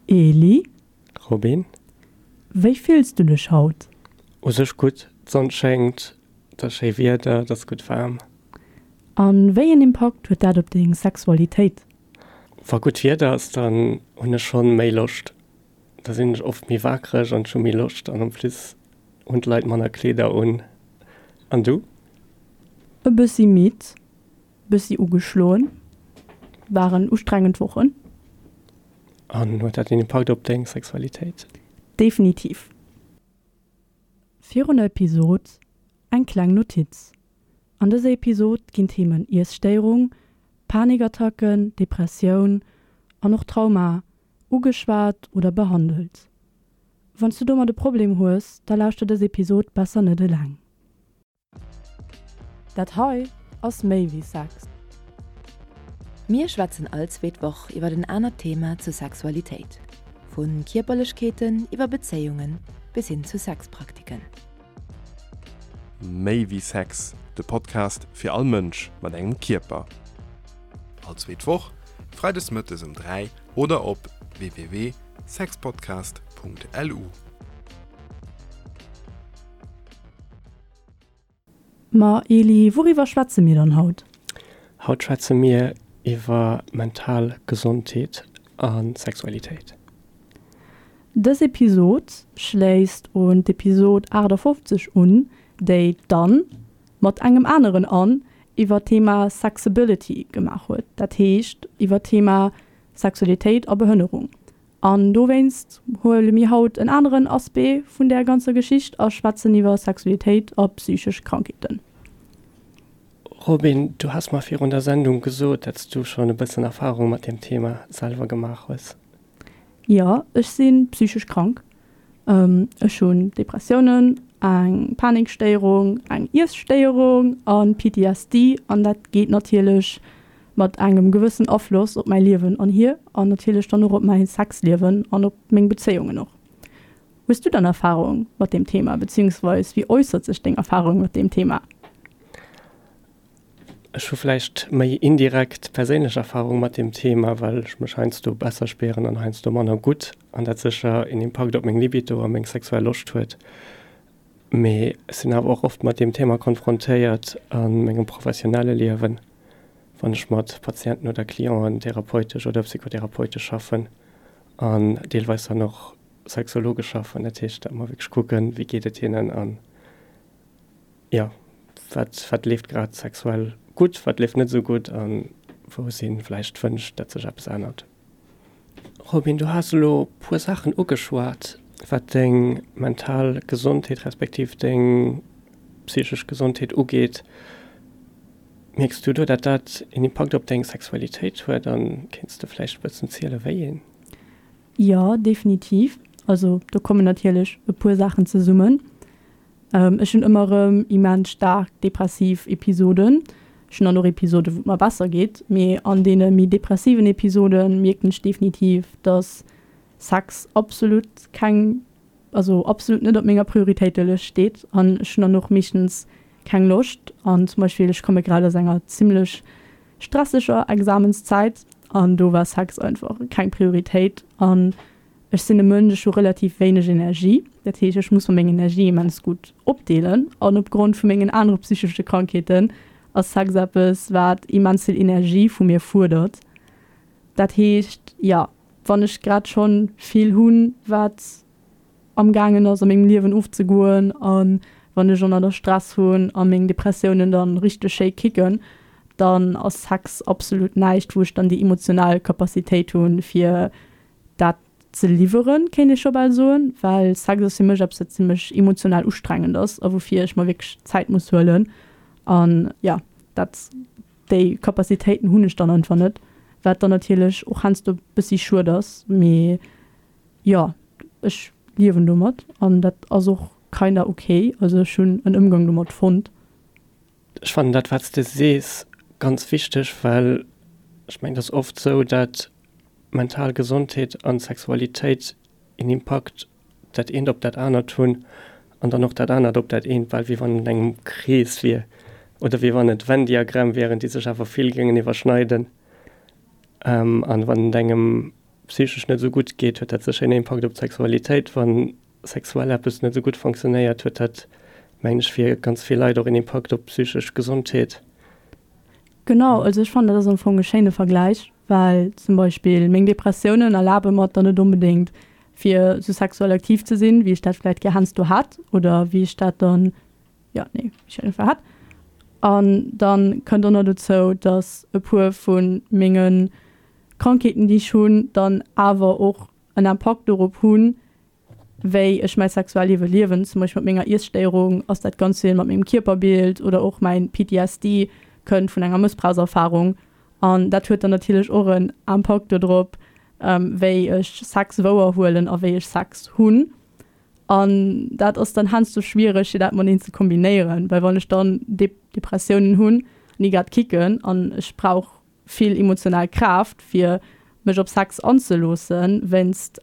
Eli? Robin? Wéi fills du dech haut? U sech gutt, d'Sonn schéngt, et ass schéi Wieder, et ass gutt waarm. A wéi een Impakt huet dat op deng Sexualitéit? Wa gutt Wieder ass, dann hunn ech schonn méi Loscht. Da sinn ech oft méi wakereg an ech hu méi Loscht an en plus hunn d'Leit manner Kleeder un. An du? E bëssi midd, Bëssi ugeschloen. Waren ustrengend Wochen. An huet dat een Impakt op deng Sexualitéit? Definitiv. Virun der Episod eng kleng Notiz, An dëser Episod ginn d'Themen Iesstéierung, Panikattacken, Depressioun an och Trauma ugeschwat oder behandelt. Wann s du domat e Problem hues, da lauschter dës Episod besser net eleng. Dat hei ass méi wéi Sex. Mir schwätzen all zweet Woch iwwer en anert Thema zur Sexualitéit, vu Kierperlechkeeten iwwer Bezéiungen bis hin zu Sexpraktiken. Méi wéi Sex, de Podcast fir all Mënsch mat engem Kierper. All zweet Woch, freides mëttes um 3 oder op www.sexpodcast.lu. Ma Eli, wouriwwer schwätze mir dann haut? Haut schwätze mir iwwer mental Gesondheet a Sexualitéit. Dës Episod schléisst un d'Episod 58 un, déi d'Anne mat engem aneren Anne iwwer d'Thema Sexability gemaach huet, dat heescht iwwer d'Thema Sexualitéit a Behënnerung. An dowéinst huele mir haut en aneren Aspect vun där ganzer Geschicht a schwätzen iwwer Sexualitéit a psychesch Krankheeten. Robin, du has mer virun der Sendung gesot, dat s du schonn e bëssen Erfahrung mat deem Thema selwer gemaach hues. Jo, ech si psychesch krank. Ech hunn Depressiounen, eng Panikstéierung, eng Iesstéierung a PTSD an dat geet natierlech mat engem gewëssen Afloss op mäi Liewen an hier an natierlech dann och op mäi Sexliewen an op meng Bezéiungen och. Hues du dann Erfahrung mat deem Thema, beziehungsweis wéi äussert sech deng Erfahrung mat deem Thema? Ech hu vläicht méi indirekt perséinlech Erfahrung mat deem Thema, well ech mech heiansdo besser spieren an heiansdo manner gutt an dat sécher een Impakt op meng Libido a meng sexuell Loscht huet. Mee ech sinn awer och oft mat deem Thema konfrontéiert a mengem professionelle Liewen, wann ech mat Patienten oder Clienten therapeutesch oder psychotherapeutesch schaffen an deelweis dann och sexologesch schaffen. Dat heescht, datt mer wierklech kucken, wéi geet et hinnen an, jo, wat, wat leeft grad sexuell gutt, wat leeft net esou gutt a wou si vläicht Wënsch, datt sech eppes ännert. Robin, du has elo puer Saachen ugeschwat, wat deng mental Gesondheet respektiv deng psychesch Gesondheet ugeet. Mierks du do, datt dat een Impakt op deng Sexualitéit huet an kéints de vläicht e bëssen zielen, wéi een? Jo, definitiv. Also do kommen natierlech e puer Saachen zesummen. Ech hunn ëmmer erëm immens staark depressiv Episoden. Ech hunn dann och Episoden, wou et mer besser geet, mee an deene méi depressiven Episode mierken ech definitiv, dass Sex absolut keng, also absolut net op menger Prioritéitelëscht steet an ech hunn dann och meeschtens keng Loscht. An zum Beispill, ech komme grad aus enger zimmlech stresseger Examenszäit an do war Sex einfach keng Prioritéit an Ech sinn e Mënsch, ech hu relativ wéineg Energie. Dat heescht, ech muss mer meng Energie immens gutt opdeelen. An opgrond vu mengen anere psychesche Krankheeten ass Sex eppes, wat immens vill Energie vu mir fuerdert. Dat heescht, jo, wann ech grad schonn vill hunn, wat amgaangen ass a mengem Liewen ofzegoen a wann ech ënner der Stress hunn a meng Depressiounen dann richteg schéi kicken, dann ass Sex absolut näischt, wou ech dann déi emotional Capacitéit hunn, fir dat ze liwweren, kéint ee scho bal soen, well Sex ass fir mech eppes, wat zimmlech emotional ustrengend ass a woufir ech mer wierklech Zäit muss huelen. An jo, dat, déi Capacitéiten hunn ech dann einfach net, wat dann natierlech och heiansdo bëssi schued ass. Mee jo, ech liewen domat an dat ass och kinda ok. Also ech hunn en Ëmgang domat fonnt. Ech fannen dat, wat s de sees, ganz wichteg, well ech mengen, et ass oft esou, dat mental Gesondheet an Sexualitéit een Impakt dat eent op dat anert hunn an dann och dat anert op dat eent, bal wéi wann et engem Krees wier oder wéi wann et Venn-Diagramm wieren, déi sech awer vill géingen iwwerschneiden. An wann et engem. psychesch net esou gutt geet, huet dat sécher een Impakt op d'Sexualitéit. Wann sexuell eppes net esou gutt fonctionnéiert, huet dat, mengen ech, fir ganz vill Leit och een Impakt op d'psychesch Gesondheet. Genau, also ech fannen dat ass am Fong e schéine Vergläich, well zum Beispill meng Depressiounen erlabe mer et dann net onbedéngt fir sou sexuell aktiv ze sinn, wéi ech dat vläit gär heiansdo hätt oder wéi ech dat dann, jo, nee, wéi ech dat einfach hätt. An dann kënnt och nach dozou, dass e puer vu menge Krankheeten, déi ech hunn, dann awer och en Impakt dorop hunn, wéi ech mäi Sexualliewe liewen, zum Beispill mat menger Iesstéierung ass dat ganz vill mat mengem Kierperbild oder och mäin PTSD kënnt vun enger Mëssbrauchserfarung an dat huet dann natierlech och en Impakt dodrop, wéi ech Sex wouer huelen a wéi ech Sex hunn. An dat ass dann heiansdo schwiereg fir dat mateneen ze kombinéieren, well wann ech dann Depressiounen hunn an déi grad kicken an ech brauch vill emotional Kraaft fir mech op Sex anzeloossen wéinst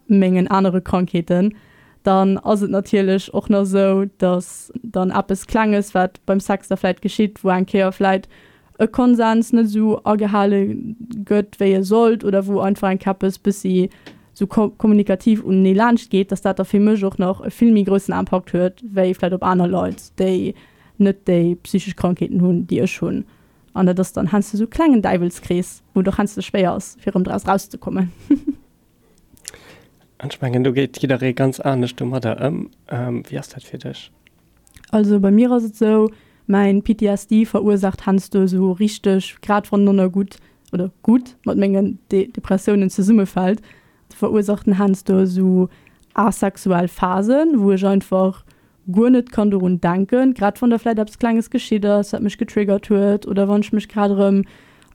mengen anere Krankheeten, dann ass et natierlech och nach esou, dass dann eppes Klenges, wat beim Sex da vläit geschitt, wou eng Kéier vläit e Konsens net esou agehale gëtt, wéi e sollt, oder wou einfach eng Kéier eppes bëssi esou kommunikativ unenee laanscht geet, dass dat da fir mech och nach e vill méi groussen Impakt huet, wéi vläit op aner Leit, déi net déi psychesch Krankheeten hunn, déi ech hunn. An dat ass dann heiansdo esou e klengen Däiwelskrees, wou et och heiansdo schwéier ass, fir erëm draus erauszekommen. An ech mengen, do geet jidderee ganz anescht domadder ëm. Wéi ass dat fir dech? Also bei mir ass et esou, mäin PTSD verursaacht heiansdo esou richteg, grad wann en gutt oder gutt mat mengen Depressiounen zesummefält, verursaacht en heiansdo esou asexuell Phasen, wou ech einfach guer net kann dorun denken, grad wann da vläit eppes Klenges geschitt ass, wat mech getriggert huet, oder wann ech mech grad erëm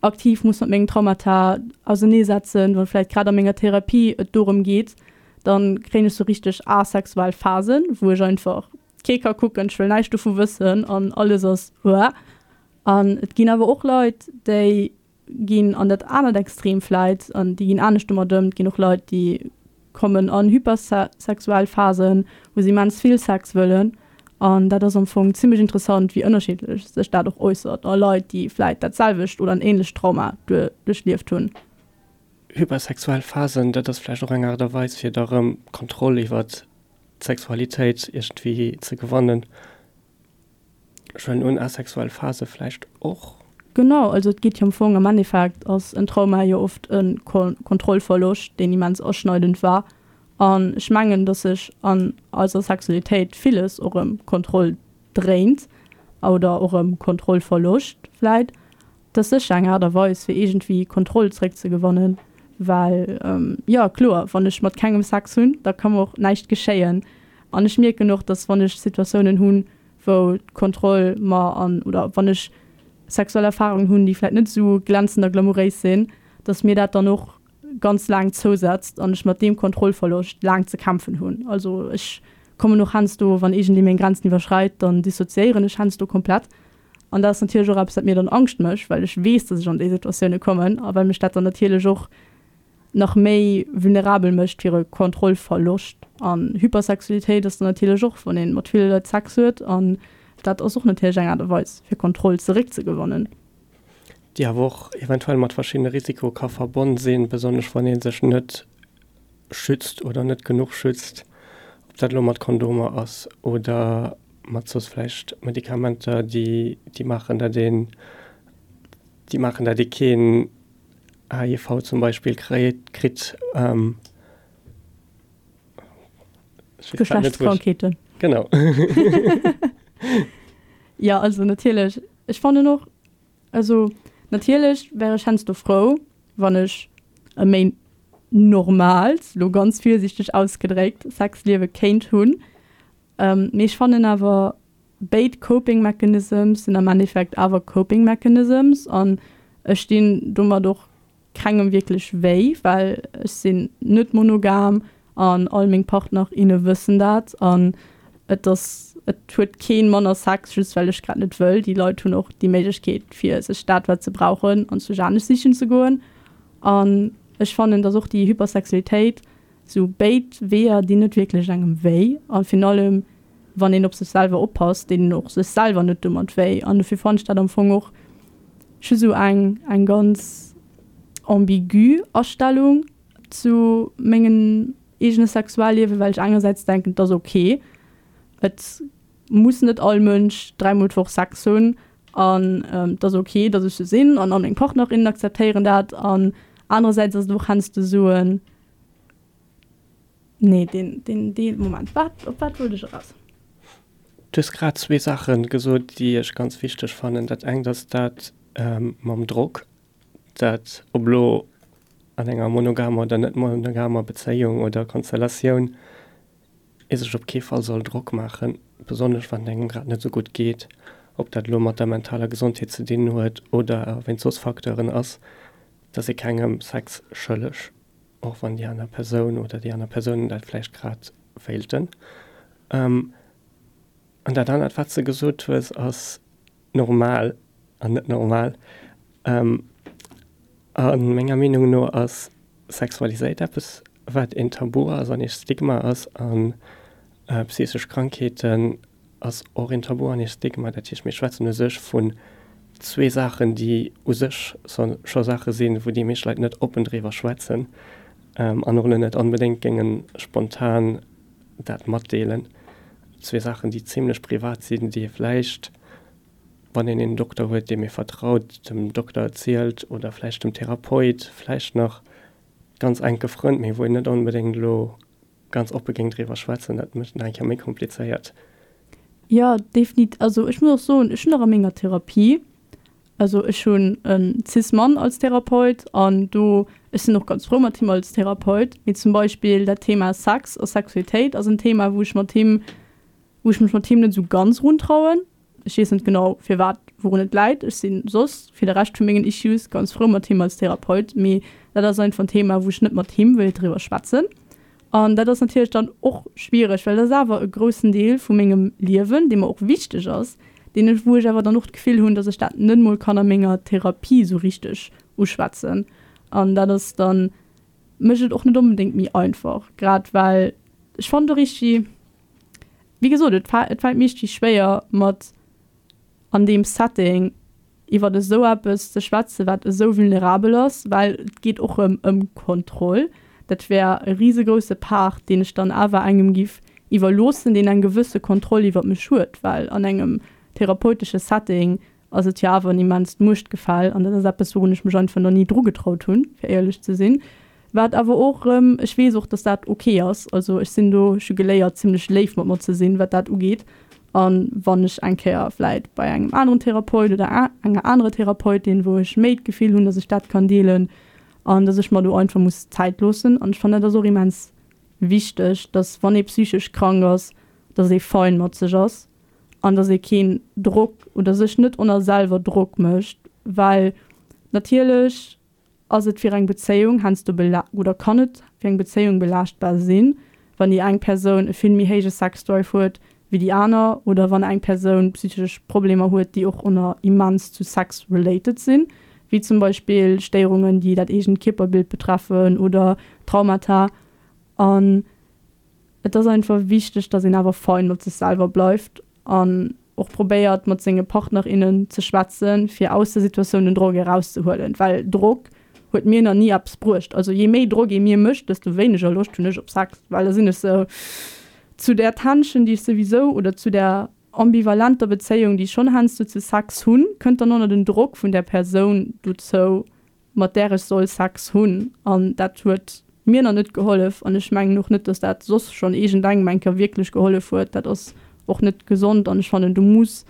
aktiv muss mat mengen Traumata auserneesetzen, wann vläit grad a menger Therapie et dorëm geet, dann kréien ech sou richteg asexuell Phasen, wou ech einfach kee ka kucken, ech wëll näischt dovu wëssen an alles ass uah. An et ginn awer och Leit, déi ginn an dat anert Extrem vläit an déi ginn anescht domat ëm. Et ginn och Leit, déi kommen an hypersexuell Phasen, wou se immens vill Sex wëllen. An dat ass am Fong zimmlech interessant, wéi ënnerschiddlech sech dat och äussert a Leit, déi vläit dat selwecht oder en änlecht Trauma duerchlieft hunn. Hypersexuell Phasen, dat ass vläicht och eng Aart a Weis, fir da rëm Kontroll iwwert d'Sexualitéit iergendwéi ze gewannen. Ech huelen un, asexuell Phase vläicht och? Genau, also et geet jo am Fong, am Endeffekt ass en Trauma jo oft e Kontrollverloscht, deen immens aschneidend war. An ech mengen, datt sech an eiser Sexualitéit villes och ëm Kontroll dréint oder och ëm Kontrollverloscht vläit. Et ass sécher eng Aart a Weis, fir iergendwéi Kontroll zréckzegewannen, well, jo, kloer, wann ech mat kengem Sex hunn, da ka mer och näischt geschéien. An ech mierken och, dass wann ech Situatiounen hunn, wou d'Kontroll mer an, oder wann ech sexuell Erfarungen hunn, déi vläicht net esou glänzend a glamouréis sinn, dass mir dat dann och ganz laang zousetzt an ech mat deem Kontrollverloscht laang ze kämpfen hunn. Also ech kommen och heiansdo, wann iergendee meng Grenzen iwwerschreit, dann dissoziéieren ech heiansdo komplett. An dat ass natierlech och eppes, wat mir dann Angscht mécht, well ech weess, dass ech an déi Situatioune kommen a well mech dat dann natierlech och nach méi vulnerabel mécht fir e Kontrollverloscht. An Hypersexualitéit ass dann natierlech och, wann ee mat ville Leit Sex huet an dat ass och natierlech eng Aart a Weis, fir Kontroll zeréckzegewannen. Déi awer och eventuell mat verschiddene Risiko ka verbonn sinn, besonnesch wann ee sech net schützt oder net genuch schützt, ob dat elo mat Kondomer ass oder mat soss vläicht Medikamenter, déi déi maachen, dat een, déi maachen, dat ee keen HIV zum Beispill kréit, kritt. Geschlechtskrankheeten. Genau. Jo, also natierlech, ech fannen och, Also natierlech wär ech heiansdo frou, wann ech e méi normaalt, lo ganz virsiichteg ausgedréckt, Sexliewe kéint hunn. Mee ech fannen awer, béid Coping Mechanisms sinn am Endeffekt awer Coping Mechanisms an ech dinn domat och kengem wierklech wéi, well ech sinn net monogam an all meng Partner, inne wëssen dat an et ass, et huet keen manner Sex just well ech grad net wëll. Déi Leit hunn och déi Méiglechkeet fir sech dat wat se brauchen an sech anescht sichen ze goen an ech fannen, dass och déi Hypersexualitéit, sou béid Weeër dinn net wierklech engem wéi a virun allem wann een op sech selwer oppasst, deet een och sech selwer net domat wéi an dofir fannen ech dat am Fong och just sou eng eng ganz ambigu Astellung. zu mengem eegene Sexualliewen, well ech engersäits denken, et ass ok, et muss net all Mënsch dräimol d'Woch Sex hunn an et ass ok, datt ech sou sinn an all meng Partnerinnen akzeptéieren dat an anerersäits ass et och heiansdo sou en, Nee, deen, deen Deel, Moment, wat, op wat wollt ech eraus? Du hues grad zwee Saache gesot, déi ech ganz wichteg fannen. Dat engt ass dat mam Drock, dat ob elo an enger monogamer oder net monogamer Bezéiung oder Konstellatioun, ee sech op kee Fall soll Drock maachen, besonnesch wann et engem grad net esou gutt geet, ob dat elo mat der mentaler Gesondheet ze dinn huet oder wéinst soss Facteuren ass, dass ee kengem Sex schëlleg. Och wann déi aner Persoun oder déi aner Persounen dat vläicht grad wéilten. An dat anert, wat s de gesot hues, ass normal an net normal. A menger Meenung no ass Sexualiséit eppes, wat een Tabu ass an ee Stigma ass. A psychesch Krankheeten ass och een Tabu an ee Stigma. Dat heescht, mir schwätzen u sech vun zwee Saachen, déi u sech scho Saache sinn, wou déi meescht Leit net oppen driwwer schwätzen an och elo net onbedéngt géinge spontan dat matdeelen. Zwee Saachen, déi zimlech privat sinn, déi ee vläicht, wann een een Dokter huet, deem ee vertraut, dem Dokter erzielt oder vläicht dem Therapeut, vläicht nach ganz enke Frënd, mee wou een net onbedéngt elo ganz oppe géing driwwer schwätzen, dat mécht et nach eng Kéier méi komplizéiert. Jo, definit. Also ech muss och soen, ech hunn och a menger Therapie, also ech hunn e Cis-Mann als Therapeut an do, ech sinn och ganz frou mat him als Therapeut, mee zum Beispill dat Thema Sex a Sexualitéit ass en Thema, wou ech mat him, wou ech mech mat him net esou ganz eruntrauen. Ech weess net genau firwat, wourun et läit. Ech si soss fir de Rescht vu mengen Issues ganz frou mat him als Therapeut, mee dat ass einfach en Thema, wou ech net mat him wéilt driwwer schwätzen. An dat ass natierlech dann och schwiereg, well dat ass awer e groussen Deel vu mengem Liewen, dee mer och wichteg ass, deen ech, wou ech awer dann och d'Gefill hunn, datt ech dat net mol kann a menger Therapie sou richteg uschwätzen. An dat ass dann, mécht et och net onbedéngt méi einfach, grad well ech fannen do richteg, Wéi gesot, et et fält mir richtig schwéier mat an deem Setting iwwert esou eppes ze schwätzen, wat esou vulnerabel ass, well et geet och erëm ëm Kontroll. Dat wär e risegrousse Part, deen ech dann awer engem giff iwwerloossen, deen eng gewësse Kontroll iwwert mech huet, well an engem therapeutesche Setting ass et jo awer en immenst Muechtgefäll an dat ass eppes, wourun ech mech einfach nach ni drugetraut hunn, fir éierlech ze sinn. Wat awer och erëm, ech weess och, dass dat ok ass, also ech sinn do, ech hu geléiert zimlech léif mat mer ze sinn, wat dat ugeet. A wann ech eng Kéier vläit bei engem aneren Therapeut oder enger anerer Therapeutin, wou ech méi d'Gefill hunn, dass ech dat kann deelen an dass ech mer do einfach muss Zäit loossen. An ech fannen, dat ass och immens wichteg, dass wann ee psychesch krank ass, dass ee fein mat sech ass an dass ee keen Drock oder sech net oner selwer Drock mécht, well natierlech ass et fir eng Bezéiung heiansdo bela oder kann et fir eng Bezéiung belaaschtbar sinn, wann déi eng Persoun e vill méi héije Sexdrive huet wéi déi aner oder wann eng Persoun psychesch Problemer huet, déi och oner immens zu Sex related sinn, wéi zum Beispill Stéierungen, déi dat eegent Kierperbild betreffen oder Traumata. An Et ass einfach wichteg, dass een awer fein mat sech selwer bleift an och probéiert mat senge Partner, innen ze schwätzen, fir aus der Situatioun den Drock erauszehuelen, well Drock huet mir nach ni eppes bruecht. Also je méi Drock ee mir mécht, desto wéineger Loscht hunn ech op Sex, well da sinn ech sou zu där Tension, déi ech souwisou, oder zu där ambivalenter Bezéiung, déi ech schonn heiansdo zu Sex hunn, kënnt dann och nach den Drock vun där Persoun dozou, mat där ech soll Sex hunn, an dat huet mir nach net gehollef an ech mengen och net, dass dat soss schonn iergendengem eng Kéier wierklech gehollef huet. Dat ass och net gesond an ech fannen, do muss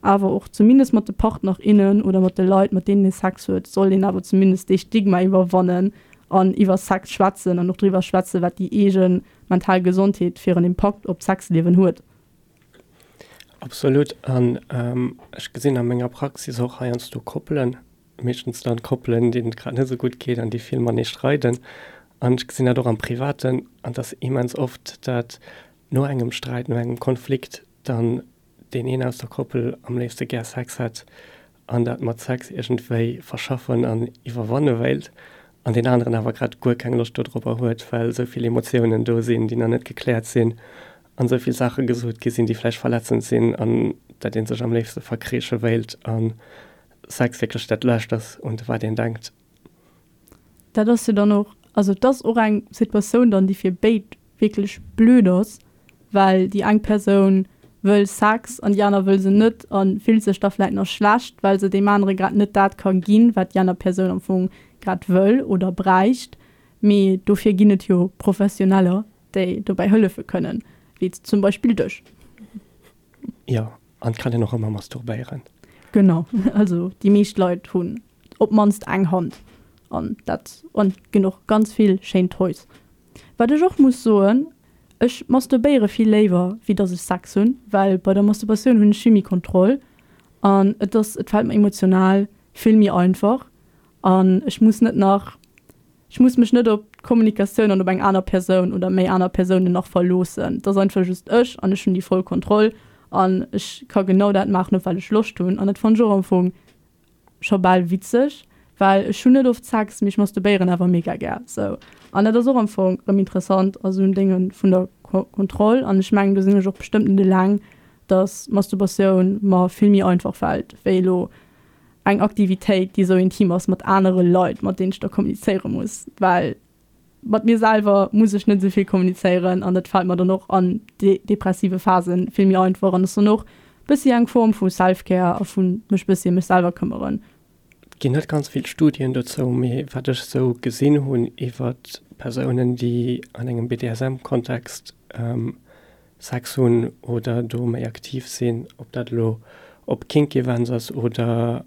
awer och zumindest mat de Partner, innen oder mat de Leit, mat deenen ee Sex huet, sollt een awer zumindest dee Stigma iwwerwannen an iwwer Sex schwätzen an och driwwer schwätzen, wat déi eege mental Gesondheet fir en Impakt op d'Sexliewen huet. Absolut an ech gesinn a menger Praxis och heiansdo Koppelen, meeschtens dann Koppelen, deenen et grad net esou gutt geet an déi vill matenee streiden. An ech gesinn dat och am Privaten, an et ass immens oft, dat no engem Sträit, no engem Konflikt dann deen een aus der Koppel am léifste gär Sex hätt an dat mat Sex iergendwéi verschaffen an iwwerwanne wéilt an deen aneren awer grad guer keng Loscht dodropper huet, well esou vill Emotiounen do sinn, déi nach net gekläert sinn an esou vill Saache gesot gi sinn, déi vläicht verletzend sinn an dat ee sech am léifste verkriiche wéilt. An Sex wierklech dat Lescht ass, un wat een denkt. Dat ass jo dann och. Also et ass och eng Situatioun dann, déi fir béid wierklech blöd ass, well déi eng Persoun wëll Sex an déi aner wëll se net a fillt sech da vläit nach schlecht, well se deem anere grad net dat ka ginn, wat déi aner Persoun am Fong grad wëll oder bräicht. Mee dofir ginn et jo Professioneller, déi dobäi hëllefe kënnen, wéi zum Beispill dech. Jo, an et kann een och ëmmer masturbéieren. Genau, also déi meescht Leit hunn op d'mannst eng Hand an dat an et ginn och ganz vill schéin Toys. Wat ech och muss soen, ech masturbéiere vill léiwer wéi dass ech Sex hunn, well bei der Masturbatioun hunn ech vill méi Kontroll an et ass, et fält mer emotional vill méi einfach an ech muss net nach, ech muss mech net op d'Kommunikatioun an op eng aner Persoun oder méi aner Persounen nach verloossen. Et ass einfach just ech an ech hunn déi voll Kontroll an ech ka genau dat maachen op wat ech Loscht hunn an dat fannen ech och am Fong scho bal witzeg, well ech hunn net oft Sex, mee ech masturbéieren awer mega gär sou. An dat ass och am Fong rëm interessant a sou en Dénge vun der Kontroll. An ech mengen, do sinn ech och bestëmmt net eleng, dass Masturbatioun mer vill méi einfach fält wéi elo eng Aktivitéit, déi sou intim ass mat anere Leit, mat deenen ech da kommunizéiere muss, well Mat mir selwer muss ech net esou vill kommunizéieren an dat fält mer dann och an depressive Phasen vill méi einfach an ass dann och bëssi eng Form vu Self-Care a vu mech bëssi ëm mech selwer këmmeren. Et ginn net ganz vill Studien dozou, mee wat ech esou gesinn hunn iwwer Persounen, déi an engem BDSM-Kontext Sex hunn oder do méi aktiv sinn, ob dat elo op Kink Events ass oder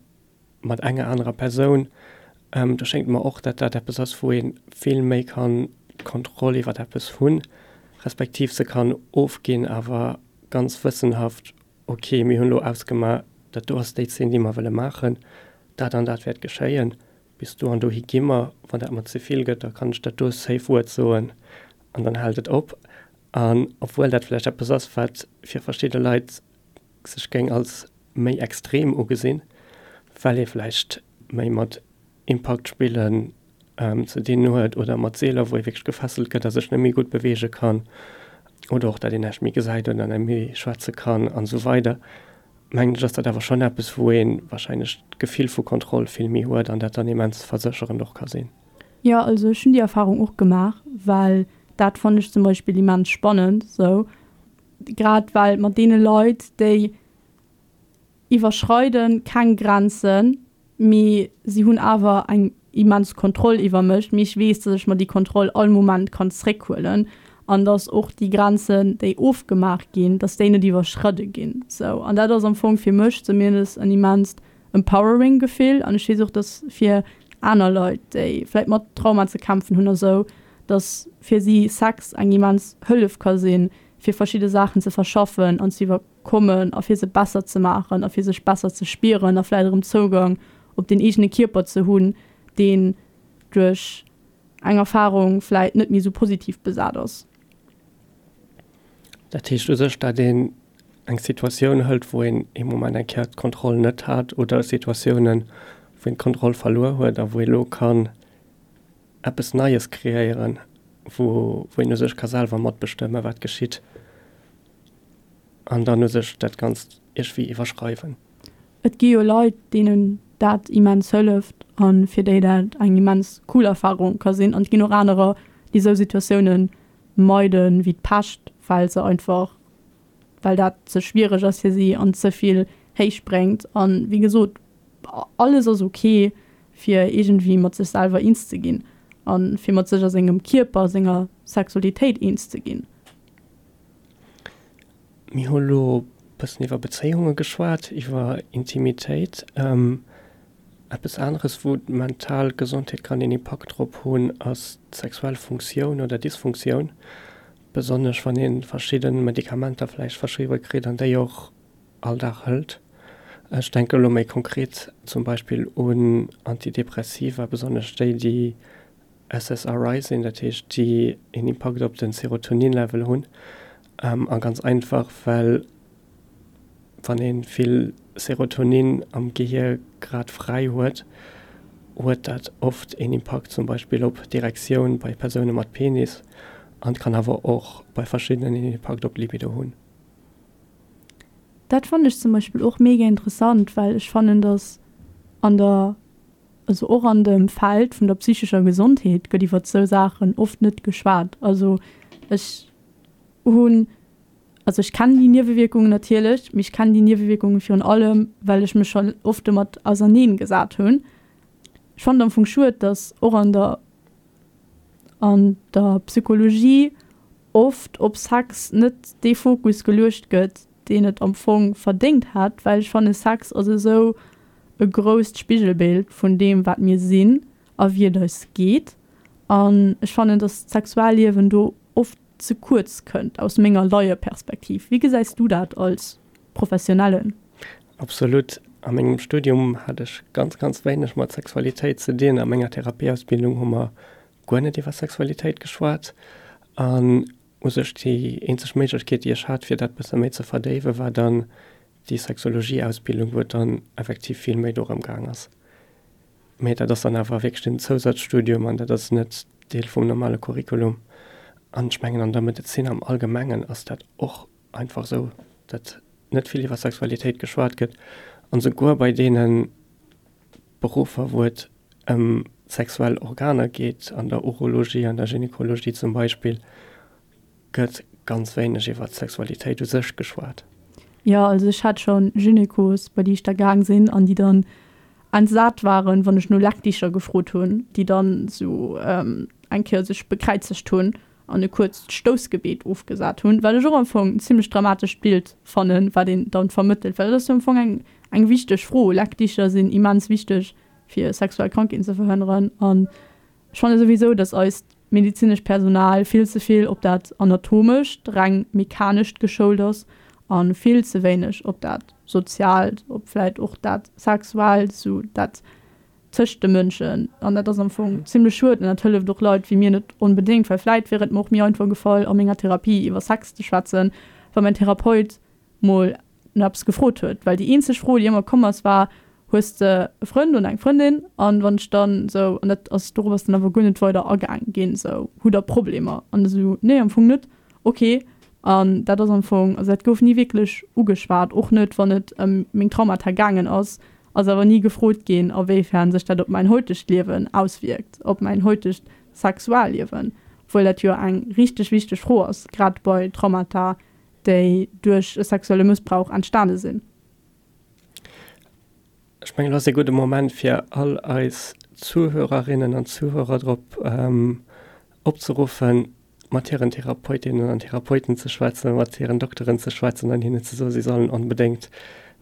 mat enger anerer Persoun, do schéngt mer och, dat dat eppes ass, wou ee vill méi kann d'Kontroll iwwer eppes hunn, respektiv se kann ofginn, awer ganz wëssenhaft, ok, mir hunn elo ausgemaach, dat do ass déi Zeen, déi mer wëlle maachen, dat an dat wäert geschéien, bis do an dohi gi mer, wann dat mer ze vill gëtt, da kann ech dat do Safe Word soen an dann hält et op. An obwuel dat vläicht eppes ass, wat fir verschidde Leit sech géing als méi extrem ugesinn, well ee vläicht méi mat Impaktspillen ze dinn huet oder mat Seeler, wou ee wierklech gefesselt gëtt a sech net méi gutt beweege kann oder och dat een näischt méi gesäit oder net méi schwätze kann an esou weider, mengen ech, ass dat awer schonn eppes, wou ee warscheinlech d'Gefill vu Kontroll vill méi huet an dat dann immens versécherend och ka sinn. Jo, also ech hunn déi Erfarung och gemaach, well dat fannen ech zum Beispill immens spannend esou. Grad well mat deene Leit, déi iwwerschreide keng Grenzen, mee si hunn awer eng immens Kontroll iwwer mech, mee ech weess, datt ech mer déi Kontroll all Moment kann zréckhuelen an datt och déi Grenzen, déi ofgemaach ginn, datt déi net iwwerschridde ginn. Sou, an dat ass am Fong fir mech zumindest en immenst empowering Gefill an ech weess och, datt fir aner Leit, déi vläicht mat Trauma ze kämpfen hunn a sou, dass fir si Sex eng immens Hëllef ka sinn, fir verschidde Saachen ze verschaffen an ze iwwerkommen a fir se besser ze maachen a fir sech besser ze spieren a vläicht erëm Zougang op den eegene Kierper ze hunn, deen duerch eng Erfarung vläicht net méi esou positiv besat ass. Dat heescht u sech, dat een eng Situatioun hëlt, wou een ee Moment eng Kéier d'Kontroll net hat oder Situatiounen, wou een d'Kontroll verluer huet a wou ee lo kann eppes Neies kreéieren, wou wou een u sech ka selwer matbestëmmen, wat geschitt an dann u sech dat Ganzt iergwéi iwwerschreiwen. Et gi jo Leit, deenen dat immens hëlleft a fir déi dat eng immens cool Erfarung ka sinn. An et ginn och anerer, déi esou Situatioune meide wéi d'Pescht, well se einfach, well dat ze schwiereg ass fir si an ze vill héich bréngt. A wéi gesot, alles ass ok fir iergendwéi mat sech selwer eens ze ginn a fir mat sech a sengem Kierper, senger Sexualitéit eens ze ginn. Mir hu lo e bëssen iwwer Bezéiunge geschwat, iwwer Intimitéit. Eppes aneres, wou d'mental Gesondheet kann een Impakt drop hunn, ass d'sexuell Funktioun oder Dysfunktioun, besonnesch wann ee verschidde Medikamenter vläicht verschriwwe kritt an déi och all Dag hëlt. Ech denke elo méi konkret zum Beispill un Antidepressiva, besonnesch déi, déi SSRI sinn, dat heescht, déi een Impakt op de Serotonin-Level hunn. A ganz einfach, well wann ee vill Serotonin am Gehier grad fräi huet, huet dat oft een Impakt zum Beispill op d'Erektioun bei Persoune mat Penis an kann awer och bei verschiddenen een Impakt op d'Libido hunn. Dat fannen ech zum Beispill och mega interessant, well ech fannen, dass an der. Also och an dem Feld vun der psychescher Gesondheet gëtt iwwert esou Saachen oft net geschwat. Also ech hunn, also ech kennen déi Niewewierkungen natierlech, mee ech kennen déi Niewewierkungen virun allem, well ech mech schonn oft domat auserneen gesat hunn. Ech fannen et am Fong schued, datt och an der an der Psychologie oft op Sex net dee Fokus geluecht gëtt, deen et am Fong verdéngt hätt, well ech fanne Sex ass esou e grousst Spigelbild vun deem wat mir sinn a wéi et eis geet an ech fannen, datt d'Sexualliewen do oft ze kuerz kënnt, aus menger Laieperspektiv. Wéi gesäis du dat als Professionellen? Absolut. A mengem Studium hat ech ganz, ganz wéineg mat Sexualitéit ze dinn. A menger Therapieausbildung hu mer guer net iwwer Sexualitéit geschwat. An u sech déi eenzeg Méiglechkeet, déi ech hat, fir dat bësse méi ze verdéiwen, war dann déi Sexologieausbildung, wou et dann effektiv vill méi dorëm gaang ass. Mee dat ass dann awer wierklech den Zousazstudium an dat ass net Deel vum normale Curriculum. An ech mengen, an der Medezin am Allgemengen ass dat och einfach esou, datt net vill iwwer Sexualitéit geschwat gëtt. An esouguer bei deene Beruffer, wou et ëm sexuell Organer geet, an der Urologie, an der Gynekologie zum Beispill, gëtt ganz wéineg iwwer d'Sexualitéit u sech geschwat. Jo, also ech hat scho Gynekos, bei déi ech da gaang sinn an déi dann entsat waren, wann ech no Leckdicher gefrot hunn, déi dann esou eng Kéier sech bekräizegt hunn an e kuerzt Stoussgebet ofgesat hunn, wat ech och am Fong en zimlech dramatescht Bild fannen, wat een dann vermëttelt, well dat ass jo am Fong eng eng wichteg Fro. Leckdicher sinn immens wichteg, fir sexuell Krankheeten ze verhënneren an Ech fanne souwisou, dass eist medezinescht Personal vill ze vill op dat Anatomescht, reng Mechanescht geschoult ass a vill ze wéineg op dat Soziaalt, op vläit och dat Sexuellt, sou dat tëscht de Mënschen. An dat ass am Fong zimlech schued an dat hëlleft och Leit wéi mir net onbedéngt, well vläit wier et mer och méi einfach gefall, a menger Therapie iwwer Sex ze schwätzen, wa mäin Therapeut mol no eppes gefrot huet, well déi eenzeg Fro, déi ëmmer komm ass, war, Hues de e Frënd oder eng Frëndin? An wann ech dann esou, an dat ass, dorop ass dann awer guer net weider agaang ginn, esou, Hutt der Problemer? An esou, Nee, am Fong net. Ok. An dat ass am Fong, also dat gouf ni wierklech ugeschwat, och net, wann et ëm meng Traumata gaangen ass, ass awer ni gefrot ginn, a wéifern sech dat op mäin heutegt Liewen auswierkt, op mäin heutegt Sexualliewen, obwuel dat jo eng richteg wichteg Fro ass, grad bei Traumata, déi duerch e sexuelle Mëssbrauch entstane sinn. Ech mengen, elo ass e gudde Moment, fir all eis Zuhörerinnen an Zuhörer drop opzeruffen, mat hiren Therapeutinnen an Therapeuten ze schwätzen, mat hiren Dokteren ze schwätzen an hinnen ze soen, si sollen onbedéngt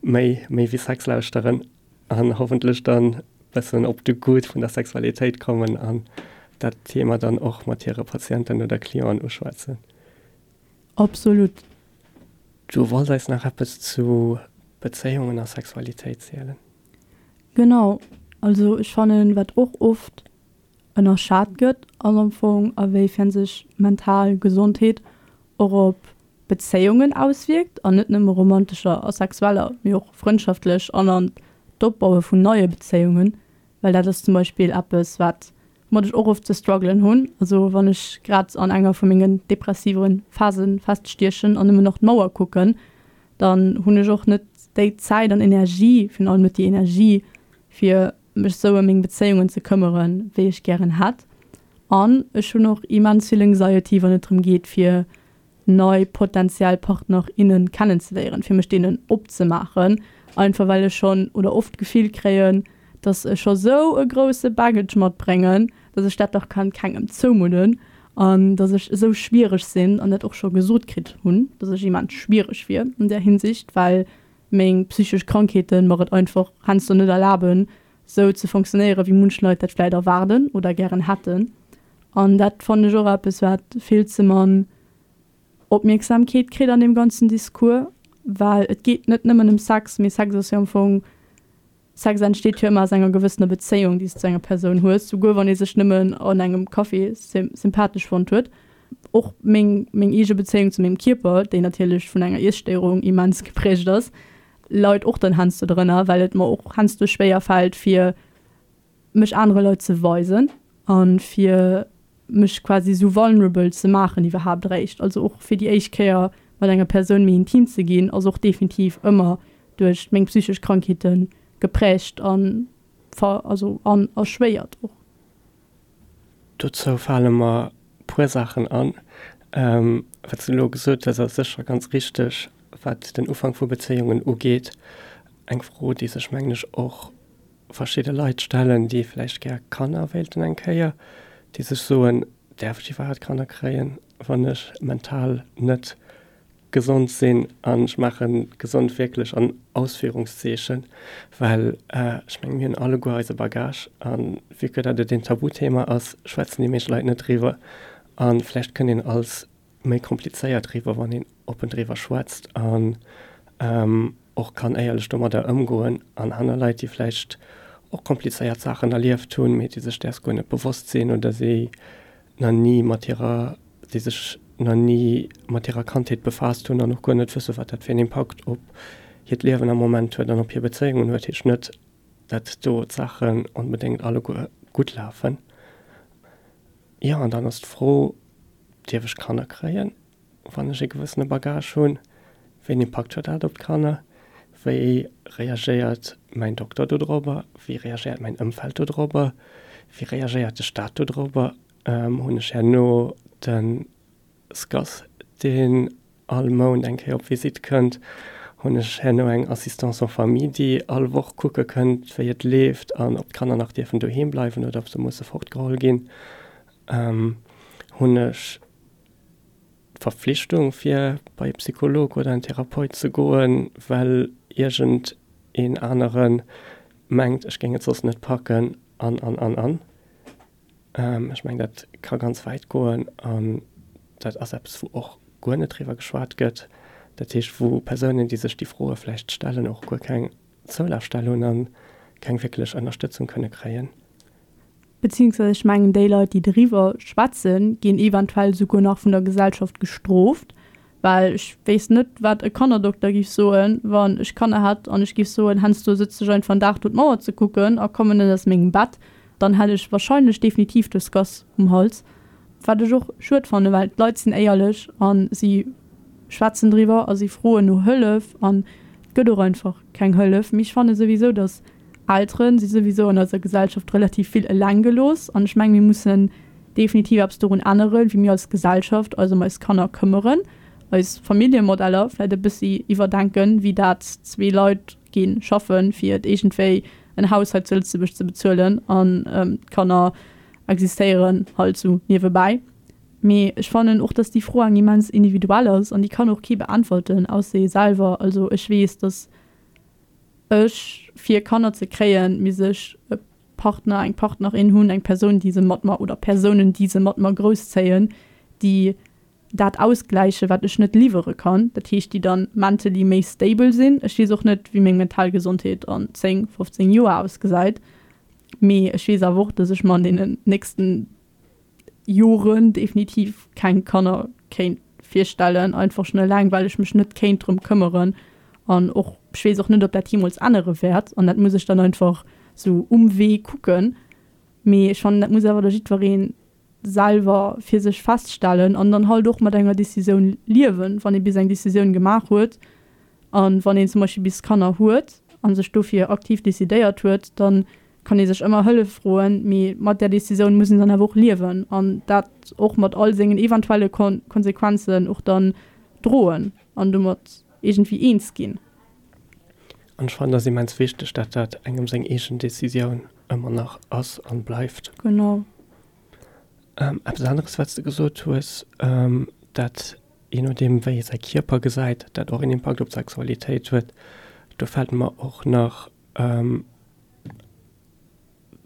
méi, méi wéi Sex lauschteren an hoffentlech dann e bëssen op de Goût vun der Sexualitéit kommen an dat Thema dann och mat hire Patienten oder Clienten uschwätzen. Absolut. Du wolls eis nach eppes zu Bezéiungen a Sexualitéit zielen? Genau. Also ech fannen, wat och oft ënnerschat gëtt, ass am Fong a wéifern sech mental Gesondheet och op Bezéiungen auswierkt, an net nëmme romantescher a sexueller, mee och frëndschaftlech an an d'Opbaue vun neie Bezéiungen. Well dat ass zum Beispill eppes, wat woumat ech och oft ze struggelen hunn. Also wann ech grad an enger vu mengen depressive Phase feststiechen an nëmmen nach d'Mauer kucken, dann hunn ech och net déi Zäit an Energie, virun allem net déi Energie, fir mech sou ëm meng Bezéiungen ze këmmeren, wéi ech gären hätt. An ech hunn och immens vill Anxiety, wann et drëm geet, fir nei potentiell Partner, innen kennenzeléieren, fir mech deenen opzemaachen, einfach well ech schonn oder oft d'Gefill kréien, dass ech scho sou e grousse Baggage matbréngen, dass ech dat dach kann kengem zoumudden an dass ech esou schwiereg sinn an dat och scho gesot kritt hunn, dass ech immens schwiereg wier an där Hinsicht, well meng psychesch Krankheeten mer et einfach heiansdo net erlaben, sou ze fonctionnéieren, wéi munch Leit dat vläit erwaarden oder gären hätten. An dat fannen ech och eppes, wat vill ze mann Opmierksamkeet kritt an deem ganzen Discours, well et geet net nëmmen ëm Sex, mee Sex ass jo am Fong, Sex entsteet jo ëmmer aus enger gewëssener Bezéiung, déi s de zu enger Persoun hues, souguer wann ee sech nëmmen an engem Café sympathesch fonnt huet. Och meng, meng eege Bezéiung zu mengem Kierper, déi natierlech vun enger Iesstéierung immens geprägt ass, leit och dann heiansdo drënner, well et mer och heiansdo schwéier fält, fir mech anere Leit ze weisen a fir mech quasi esou vulnerable ze maachen iwwerhaapt eréischt. Also och fir déi éischt Kéier mat enger Persoun méi intim ze ginn, ass och definitiv ëmmer duerch meng psychesch Krankheete geprägt an. ver also an erschwéiert och. Dozou fale mer puer Saachen an. Wat s de elo gesot hues, ass sécher ganz richteg, wat den Ufank vu Bezéiungen ugeet. Eng Fro, déi sech, mengen ech, och verschidde Leit stellen, déi vläicht gär Kanner wéilten eng Kéier, déi sech soen, Däerf ech iwwerhaapt Kanner kréien, wann ech mental net gesond sinn? An ech maache gesond wierklech an Ausführungszeechen, well ech mengen, mir hunn alleguer eise Bagage. A vue que dat et een Tabuthema ass, schwätzen déi meescht Leit net driwwer. A vläicht kënnt een als méi komplizéiert riwwer, wann een oppen driwwer schwätzt an och kann éierlech domadder ëmgoen an aner Leit, déi vläicht och komplizéiert Saachen erlieft hunn, mee déi sech däers guer net bewosst sinn oder déi nach ni mat hirer, déi sech nach ni mat hirer Kandheet befaasst hunn an och guer net wëssen, wat dat fir en Impakt op hiert Liewen am Moment huet an op hir Bezéiungen huet, heescht net, dat do d'Saachen onbedéngt alleguer gutt lafen. Jo, an dann ass d'Fro, Dierf ech Kanner kréien, wann ech e gewëssene Bagage hunn? Wéi en Impakt huet dat op d'Kanner? Wéi reagéiert mäin Dokter dodrobber? Wéi reagéiert mäin Ëmfeld dodrobber? Wéi reagéiert de Staat dodrobber? Hunn ech herno de SCAS, deen all Mount eng Kéier op Visitt kënnt, hunn ech herno eng Assistance en famille, déi all Woch kucke kënnt, wéi et leeft an ob d'Kanner nach dierfen doheem bleiwen oder ob se musse fortgeholl ginn. Hunn ech d'Verpflichtung, fir bei e Psycholog oder en Therapeut ze goen, well iergend een anere mengt, ech géing et soss net packen an, an, an, an. Ech mengen, dat ka ganz wäit goen an dat ass eppes, wou och guer net driwwer geschwat gëtt. Dat heescht, wou Persounen, déi sech déi Froe vläicht stellen, och guer keng Zoulafstell hunn a keng wierklech Ënnerstëtzung kënne kréien. Beziehungsweise ech mengen, déi Leit, déi driwwer schwätzen, ginn eventuell souguer nach vun der Gesellschaft gestrooft, Well ech wéisst net, wat e Kannerdokter giff soen, wann ech Kanner hätt an ech giff soen, Hensdo sëtz ech einfach en Dag do d'Mauer ze kucken a kommen net aus mengem Bett, dann hätt ech wahrscheinlech definitiv de Scass um Hals. Wat ech och schued fannen, well d'Leit sinn éierlech a si schwätzen driwwer a si froen no Hëllef an et gëtt och einfach keng Hëllef. Mee ech fanne souwisou, datt Eltere si souwisou an eiser Gesellschaft relativ vill eleng gelooss an ech menge mir mussen definitiv eppes dorun änneren, wéi mir als Gesellschaft eis ëm eis Kanner këmmeren, eis Familljemodeller vläit e bëssi iwwerdenken, wéi dat zwee Leit gi schaffen, fir et iergendwéi en Haus hei zu Lëtzebuerg ze bezuelen an d'Kanner existéieren halt sou niewebäi. Mee ech fannen och, dass déi Fro eng immens individuell ass an déi kann och kee beäntwerten, ausser ee selwer. Also ech weess, dass ech fir Kanner ze kréien, misst ech e Partner, eng Partnerin hunn, eng Persoun, déi se mat mer oder Persounen, déi se mat mer grousszéien, déi dat ausgläichen, wat ech net liwwere kann. Dat heescht, déi dann mentally méi stable sinn. Ech weess och net, wéi meng mental Gesondheet an 10, 15 Joer ausgesäit, mee ech weess awer och, dass ech mer an deenen nächsten Joren definitiv keng Kanner kéint virstellen, einfach schon eleng well ech mech net kéint drëm këmmeren an och ech weess och net ob dat jeemools ännere wäert an dat muss ech dann einfach sou um Wee kucken. Mee ech fannen dat muss awer da jiddweree selwer fir sech feststellen an dann halt och mat enger Decisioun liewen, wann ee bis eng Decisioun gemaach huet an wann een zum Beispill bis Kanner huet a sech dofir aktiv decidéiert huet, dann kann ee sech ëmmer Hëllef froen, mee mat där Decisioun muss een dann awer och liewen an dat och mat all sengen eventuelle Konsequenzen och dann droen an domat iergendwéi eens ginn. An ech fannen, et ass immens wichteg, dat dat engem seng eegen Decisioun ëmmer nach ass an bleift. Genau. Eppes aneres, wat s de gesot hues, dat jee nodeem wéi ee säi Kierper gesäit, dat och een Impakt op d'Sexualitéit huet, do fält mer och nach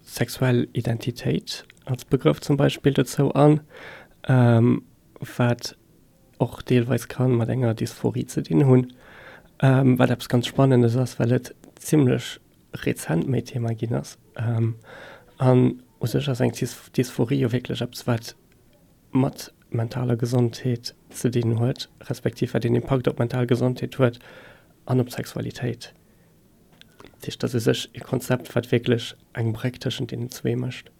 Sexuell Identitéit als Begrëff zum Beispill dozou an, wat och deelweis ka mat enger Dysphorie ze dinn hunn, wat eppes ganz Spannendes ass, well et zimmlech rezent méi Thema ginn ass. An u sech ass eng Dysphorie jo wierklech eppes, wat mat mentaler Gesondheet ze dinn huet, respektiv wat een Impakt op d'mental Gesondheet huet an op d'Sexualitéit. Dat heescht, dat ass u sech e Konzept, wat wierklech eng Bréck tëschent deenen zwee mécht.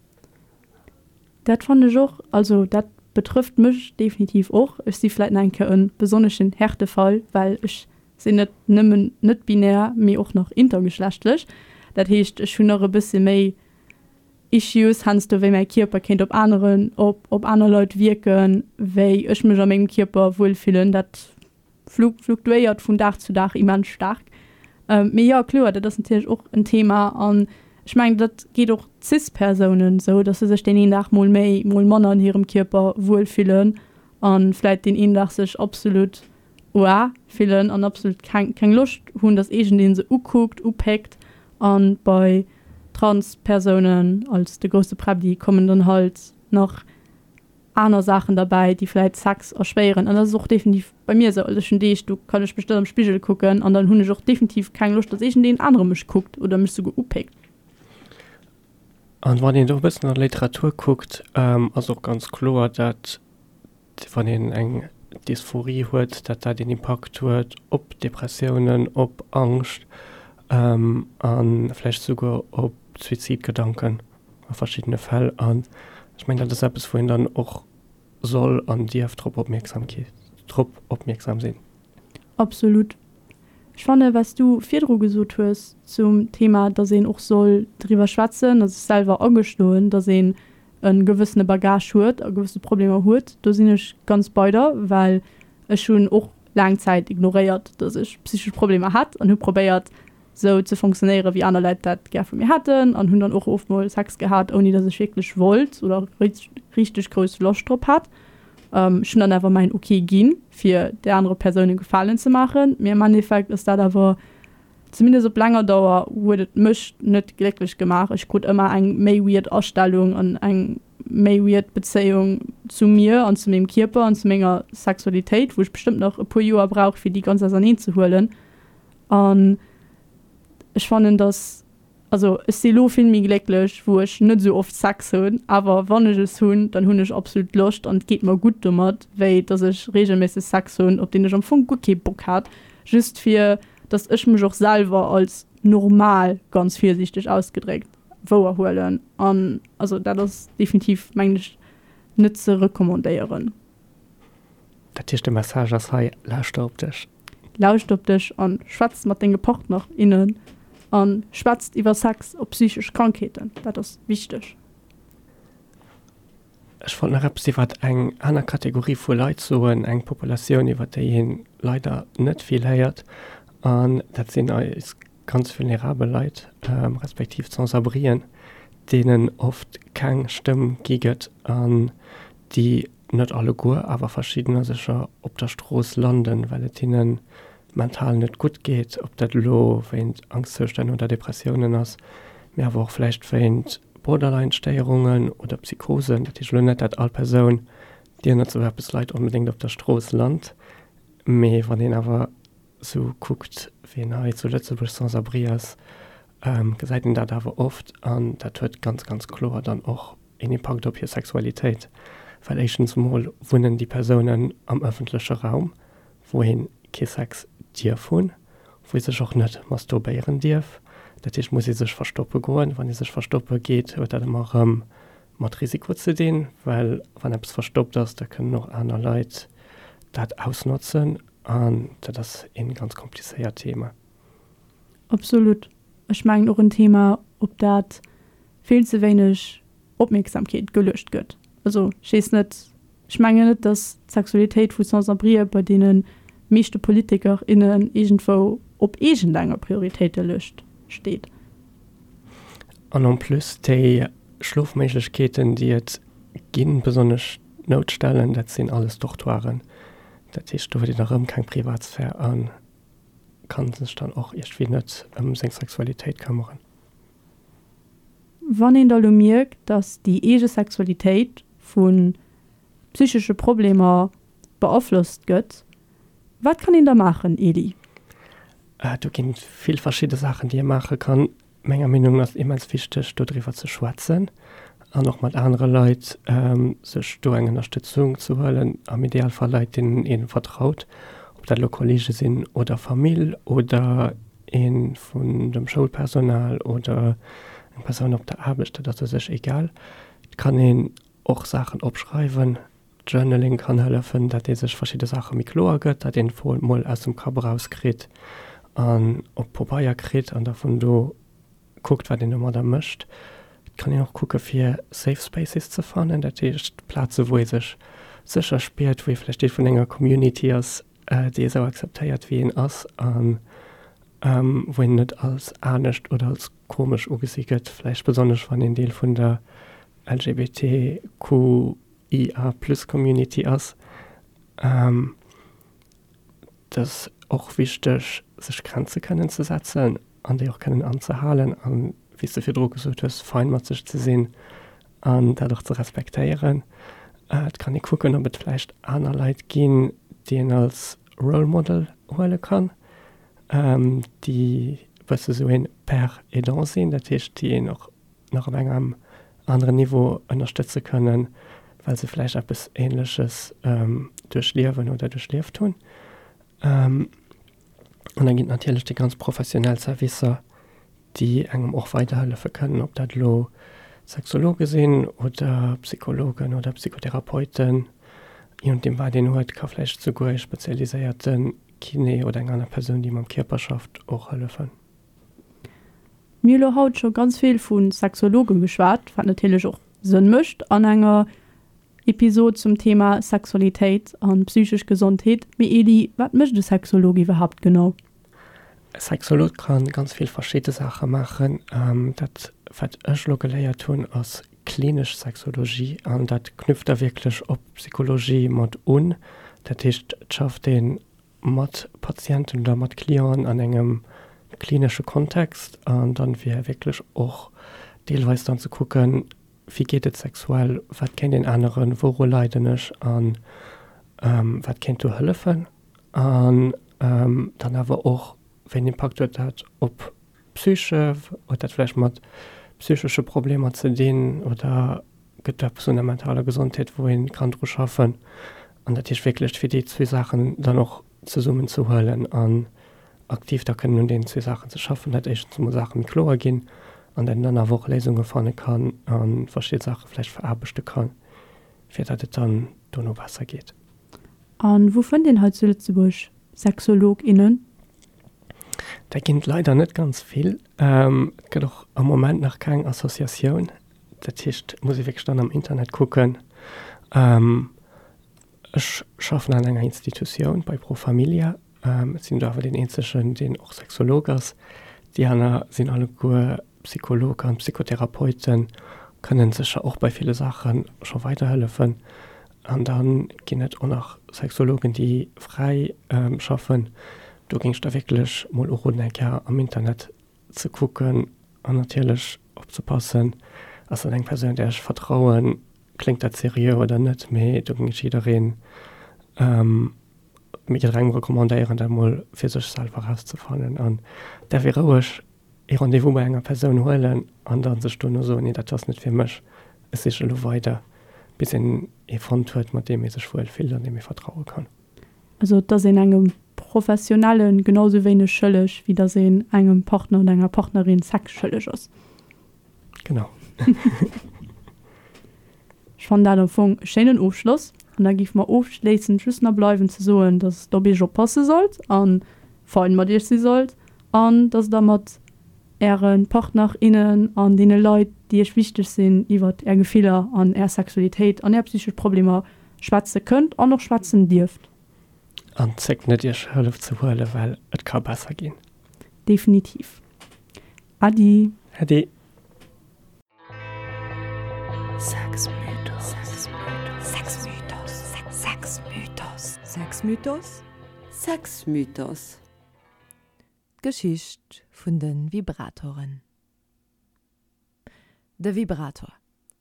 Dat fannen ech och. Also dat betrëfft mech definitiv och. Ech si vläit nach eng Kéier e besonneschen Härtefall, well ech sinn net nëmmen net-binär, mee och nach intergeschlechtlech. Dat heescht, ech hunn nach e bësse méi Issues heiansdo, wéi mäi Kierper kéint op aneren, op, op aner Leit wierken, wéi ech mech a mengem Kierper wuel fillen. Dat fluktuéiert vun Dag zu Dag immens staark. Mee jo, kloer, dat ass natierlech och en Thema. An ech mengen, dat geet och Cis-Persounen esou, datt se sech deen een Dag mol méi, mol manner an hirem Kierper wuel fillen a vläit deen een Dag sech absolut oa fillen an absolut keng, keng Loscht hunn, datt iergendee se ukuckt, upéckt. A bei Trans-Persounen als de grousse Präbbli kommen dann halt nach aner Saachen derbäi, déi vläit Sex erschwéieren. An dat ass och definitiv bei mir esou. Also ech hunn Deeg, do kann ech mech net am Spigel kucken an dann hunn ech och definitiv keng Loscht, datt iergendeen anere mech kuckt oder mech souguer upéckt. An wann een do e bëssen an der Literatur kuckt, ass och ganz kloer, dat wann een eng Dysphorie huet, dat dat een Impakt huet op Depressiounen, op Angscht a vläicht souguer op Suizidgedanken. A verschiddene Fäll. An ech mengen, dat ass eppes, wou een dann och soll an dierf drop Opmierksamkeet, drop opmierksam sinn. Absolut. Ech fanne wat s du virdru gesot hues zum Thema, dass een och soll driwwer schwätzen a sech selwer agestoen, dass een e gewëssene Bagage huet a gewësse Problemer huet, do sinn ech ganz bei der, well ech hunn och laang Zäit ignoréiert, dass ech psychesch Problemer hat an hu probéiert, sou ze fonctionnéieren, wéi aner Leit dat gär vu mir hätten an hunn dann och oft mol Sex gehat, ouni dass ech wierklech wollt oder richteg grouss Loscht drop hat. Ech hunn dann awer mäin Ok ginn, fir där anere Persoun e Gefalen ze maachen, mee am Endeffekt ass dat awer, zumindest op länger Dauer, huet et mech net glécklech gemaach. Ech krut ëmmer eng méi weird Astellung an eng méi weird Bezéiung zu mir an zu mengem Kierper an zu menger Sexualitéit, wou ech bestëmmt nach e puer Joer brauch, fir déi ganz auserneen ze huelen. An ech fannen, dass, also ech si lo vill méi glécklech, wou ech net esou oft Sex hunn, awer wann ech es hunn, dann hunn ech absolut Loscht an et geet mer gutt domat, wéi dass ech reegelméisseg Sex hunn, op deen ech am Fong guer kee Bock hat, just fir dass ech mech och selwer als normal, ganz virsiichteg ausgedréckt, wouerhuelen. An also dat ass definitiv, mengen ech, net ze recommandéieren. Dat heescht de Message ass hei, lauschter op dech. Lauscht op dech an schwätz mat denge Partner, innen an schwätzt iwwer Sex a psychesch Krankheeten, dat ass wichteg. Ech wollt nach eppes iwwert eng aner Kategorie vu Leit soen, eng Populatioun iwwert déi een leider net vill héiert, an dat sinn eis ganz vulnerabel Leit, respektiv d'Sans-abrien, deenen oft keng Stëmm gi gëtt an déi, net alleguer, awer verschiddener sécher, op der Strooss landen, well et hinne mental net gutt geet, ob dat elo wéint Angschtzoustänn oder Depressiounen ass, mee awer och vläicht wéint Borderline-Stéierungen oder Psychosen. Dat heescht elo net, dat all Persoun, déi ënnert esou eppes leit, onbedéngt op der Strooss lant, mee wann een awer sou kuckt, wien hei zu Lëtzebuerg sans-abri ass, gesäit een dat awer oft an dat huet ganz, ganz kloer dann och een Impakt op hir Sexualitéit, well éischtens emol wunnen déi Persounen am ëffentleche Raum, wou ee kee Sex dierf hunn, wou ee sech och net masturbéieren dierf. Dat heescht, muss ee sech verstoppe goen. Wann ee sech verstoppe geet, huet dat ëmmer erëm mat Risiko ze dinn, well wann eppes verstoppt ass, da kënnen och aner Leit dat ausnotzen an dat ass ee ganz komplizéiert Thema. Absolut. Ech mengen och en Thema, op dat vill ze wéineg Opmierksamkeet geluecht gëtt. Also ech weess net, ech mengen net, datt d'Sexualitéit vu Sans-abrien bei deene meeschte Politiker, innen iergendwou op iergendenger Prioritéitelëscht steet. An en plus déi Schlofméiglechkeeten, déi et ginn, besonnesch d'Noutstellen, dat sinn alles Dortoiren. Dat heescht, do huet een erëm keng Privatsphär a ka sech dann och iergendwéi net ëm seng Sexualitéit këmmeren. Wann een da lo mierkt, dass déi eege Sexualitéit vu psychesche Problemer beaflosst gëtt, wat kann een da maachen, Elie? Do ginn et vill verschidde Saachen, déi ee maache kann. Menger Meenung no ass et immens wichteg, dodriwwer ze schwätzen an och mat anere Leit sech do eng Ënnerstëtzung ze huelen, am Idealfall Leit, deenen ee vertraut, ob dat elo Kollege sinn oder Famill oder ee vun dem Schoulpersonal oder eng Persoun op der Aarbecht, dat ass u sech egal. Et kann een och Saachen opschreiwen, Journaling kann hëllefen, dat ee sech verschidde Saache méi kloer gëtt, dat een d'Fro mol aus dem Kapp erauskritt an op Pabeier kritt an da vun do. kuckt, wat een domadder mécht. Et kann een och kucke fir Safe Spaces ze fannen, dat heescht Plaze wou ee sech sécher spiert, wou ee vläicht Deel vun enger Community ass, déi ee sou akzeptéiert wéi een ass an wou een net als anescht oder als komesch ugesi gëtt, vläicht besonnesch wann een Deel vun der LGBTQIA plus Community ass. Et ass och wichteg, sech Grenze kënnen ze setzen an déi och kënnen anzehalen an, wéi s de virdru gesot hues, fein mat sech ze sinn an dat och ze respektéieren. Et kann ee kucken, ob et vläicht aner Leit ginn, déi een als Role Model huele kann, déi e bësse sou een Père aidant sinn, dat heescht, déi een och nach op engem aneren Niveau ënnerstëtze kënnen, well se vläicht eppes Ähnleches duerchliewen oder duerchlieft hunn. An da ginn et natierlech déi ganz professionell Servicer, déi engem och weiderhëllefe kënnen, ob dat elo Sexologe sinn oder Psychologen oder Psychotherapeuten, je nodeem wat een huet, ka vläicht souguer ee spezialiséierte Kiné oder eng aner Persoun, déi mam Kierper schafft, och hëllefen. Mir hu lo haut scho ganz vill vu Sexologe geschwat, wat natierlech och Sënn mécht an enger Episod zum Thema Sexualitéit an psychesch Gesondheet. Mee Eli, wat mécht e Sexolog iwwerhaapt genau? E Sexolog ka ganz vill verschidde Saache maachen. Dat wat ech elo geléiert hunn ass klinesch Sexologie an dat knüpft da wierklech op Psychologie mat un. Dat heescht et schafft ee mat Patienten oder mat Clienten an engem klinesche Kontext an dann wier wierklech och deelweis dann ze kucken, wéi geet et sexuell, wat kéint een änneren, wouru leiden ech an wat kéint do hëllefen an dann awer och, wéi en Impakt huet dat op d'Psyche, huet dat vläicht mat psychesche Problemer ze dinn oder gëtt eppes un der mentaler Gesondheet, wou ee kann dru schaffen. An dat heescht wierklech, fir déi zwee Saachen dann och zesummen ze huelen an aktiv da kënnen un deenen zwee Saachen ze schaffen, dat éischtens emol Saache méi kloer ginn an dat een dann awer och Léisunge fanne kann a verschidde Saache vläicht veraarbechte kann, fir datt et dann dono besser geet. A wou fënnt een hei zu Lëtzebuerg Sexolog, innen? Där ginn et leider net ganz vill. Et gëtt och am Moment nach keng Associatioun. Dat heescht, et muss ee wierklech dann am Internet kucken. Ech schaffen an enger Institutioun bei Pro Familia. Ech sinn do awer deen eenzegen, deen och Sexolog ass. Déi aner sinn alleguer Psycholog an Psychotherapeuten, kënnen sécher och bei ville Saache scho weiderhëllefen. An da ginn et och nach Sexologen, déi fräi schaffen. Do géing ech da wierklech mol uroden, eng Kéier am Internet ze kucken an natierlech opzepassen, ass dat eng Persoun, där ech vertrauen, kléngt dat seriö oder net, mee do géing ech jiddereen, jidderengem recommandéieren, dat mol fir sech selwer erauszefannen an däerf ee roueg ee Rendez-vous bei enger Persoun huelen an da sech dono soen, nee dat ass net fir mech, ech siche elo weider, bis een ee fonnt huet, mat deem ee sech wuel fillt an deem ee vertraue kann. Also et ass een engem Professionelle genau sou wéineg schëlleg, wéi datt een engem Partner oder enger Partnerin Sex schëlleg ass. Genau. Ech fannen dat am Fong e schéinen Ofschloss. An da géif mer ofschléissend just nach bleiwen ze soen, datt der op iech oppasse sollt a fein mat iech si sollt an datt der mat äre Partner, innen an deene Leit, déi iech wichteg sinn, iwwert är Gefiller an är Sexualitéit an är psychesch Problemer schwätze kënnt an och schwätzen dierft. An zéckt net iech Hëllef ze huelen, well et ka besser ginn. Definitiv. Äddi. Äddi. Sexmythos. D'Geschicht vun de Vibratoren. De Vibrator,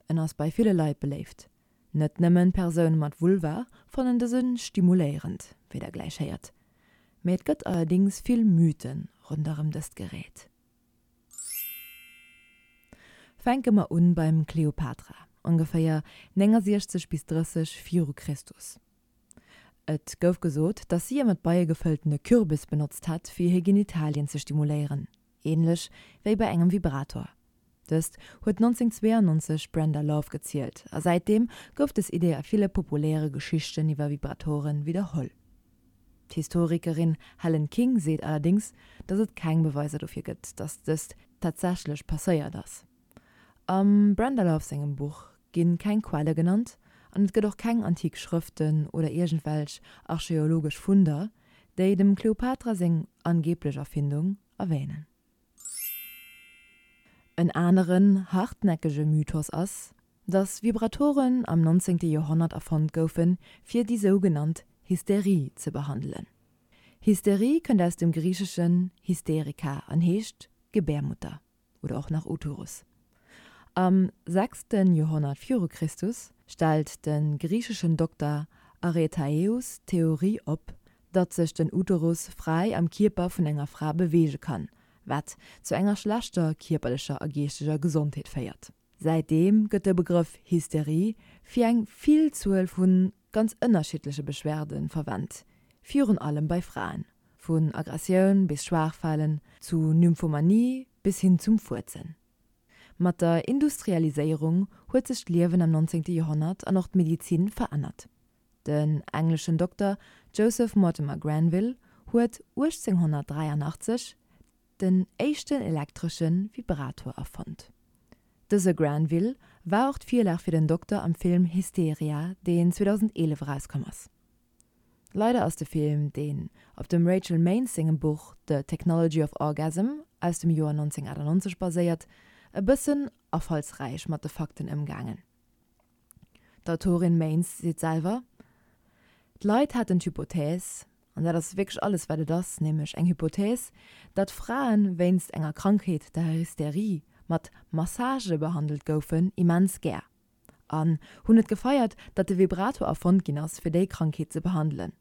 en ass bei ville Leit beléift. Net nëmmen Persoune mat Vulva fannen dëse stimuléierend, wéi der gläich héiert. Mee et gëtt allerdéngs vill Mythe ronderëm dëst Gerät. Fänke mer un beim Kleopatra, ongeféier 69 bis 30 viru Christus. Et gouf gesot, datt si e mat Beie gefëlltene Kürbis benotzt hätt, fir hir Genitalien ze stimuléieren, änlech wéi bei engem Vibrator. Dëst huet 1992 d'Brenda Love gezielt, a säitdeem gouf dës Idee a ville populäre Geschichten iwwer Vibratoren widderholl. D'Historikerin Helen King seet allerdéngs, datt et keng Beweiser dofir gëtt, datt dëst. tatsächlech passéiert ass. Am Brenda Love sengem Buch gi keng Quelle genannt an et gëtt och keng antik Schrëften oder iergendwelch archeologesch Funder, déi dem Kleopatra seng angeeblech Erfindung erwänen. En aneren hartnäckege Mythos ass, datt Vibratoren am 19. Joerhonnert erfonnt goufen, fir déi sougenannt Hysterie ze behandelen. Hysterie kënnt aus dem Griicheschen hysterika an heescht Gebärmutter oder och nach Uterus. Am sechste Joerhonnert viru Christus stellt de griicheschen Dokter Aretaeus d'Theorie op, datt sech den Uterus fräi am Kierper vun enger Fra beweege kann, wat zu enger schlechter kierperlecher a geeschteger Gesondheet féiert. Säitdeem gëtt de Begrëff Hysterie fir eng Villzuel vu ganz ënnerschiddleche Beschwerde verwent, virun allem bei Fraen, vun Aggressioun bis Schwaachfalen, zu Nymphomanie bis hin zum Fuerzen. Mat der Industrialiséierung huet sech d'Liewen am 19. Joerhonnert an och d'Medizin verännert. Den engleschen Dokter Joseph Mortimer Granville huet 1883 den éischten elektresche Vibrator erfonnt. Dëse Granville war och d'Virlag fir den Dokter am Film Hysteria, deen 2011 erauskomm ass. Leider ass de Film, deen op dem Rachel Maines sengem Buch The Technology of Orgasm aus dem Joer 1998 baséiert, e bëssen afallsräich mat de Fakten ëmgaangen. D'Autorin Maines seet selwer, D'Leit haten d'Hypothèse, an dat ass wierklech alles wat et ass, nämlech eng Hypothèse, datt Frae wéinst enger Krankheet, der Hysterie, mat Massagë behandelt goufen, immens gär. An hunn et gefeiert, datt de Vibrator erfonnt ginn ass, fir déi Krankheet ze behandelen.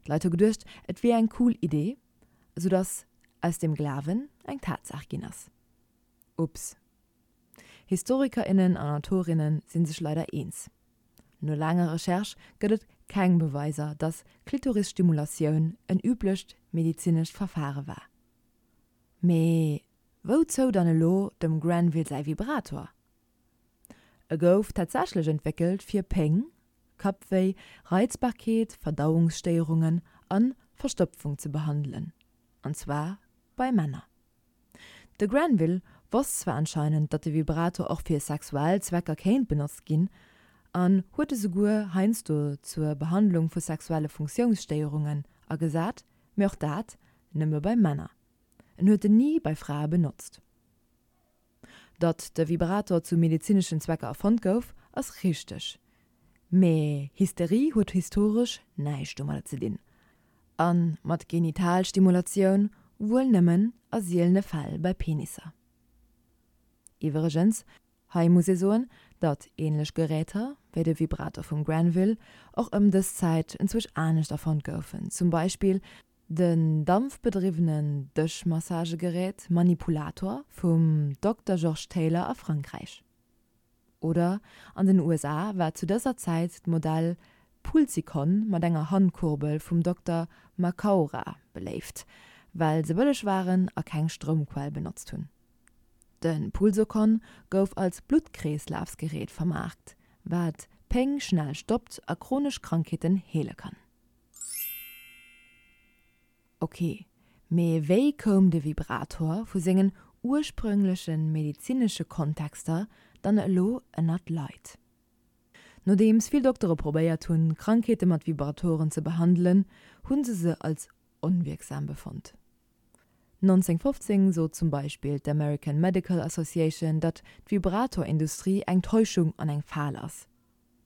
D'Leit hu geduecht, et wier eng cool Idee, soudatt aus dem Glawen eng Tatsaach ginn ass. Ups. Historiker, innen an Autorinnen si sech leider eens. No laanger Recherche gëtt et keng Beweiser, datt Klitorisstimulatioun en üblecht medezinescht Verfare war. Mee wouzou dann elo dem Granville säi Vibrator? E gouf tatsächlech entwéckelt fir Péng, Kappwéi, Reizbarkeet, Verdauungsstéierungen an Verstopfung ze behandelen, an zwar bei Männer. De Granville wosst zwar anscheinend, datt de Vibrator och fir sexuell Zwecker kéint benotzt ginn, an huet e souguer heiansdo zur Behandlung vu sexuelle Funktiounsstéierungen agesat, mee och dat nëmme bei Männer. En huet en ni bei Frae benotzt. Datt de Vibrator zu medezineschen Zwecker erfonnt gouf, ass richteg. Mee Hysterie huet historesch näischt domadder ze dinn. A mat Genitalstimulatioun wuel nëmmen a sielene Fäll bei Penisser. Iwwregens, hei muss ee soen, datt änlech Geräter, wéi de Vibrator vum Granville, och ëm dës Zäit enzwousch anescht erfonnt goufen, zum Beispill Den dampfbedriwwenen Dëschmassagegerät Manipulator vum Dokter Georges Taylor a Frankräich. Oder an den USA war zu dëser Zäit d'Modell Pulsicon mat enger Handkurbel vum Dokter Macaura beléift, well se bëlleg waren a keng Stroumquell benotzt hunn. De Pulsocon gouf als Bluttkreeslafsgerät vermaarkt, wat Péng schnell stoppt a chronesch Krankheeten heele kann. Ok, mee wéi koum de Vibrator vu sengen ursprüngleche medezinesche Kontexter dann elo ënnert d'Leit? Nodeems vill Doktere probéiert hunn, Krankheete mat Vibratoren ze behandelen, hu se se als onwierksam befonnt. 1915 sot zum Beispill d'American Medical Association, datt d'Vibratorindustrie eng Täuschung an eng Fal ass.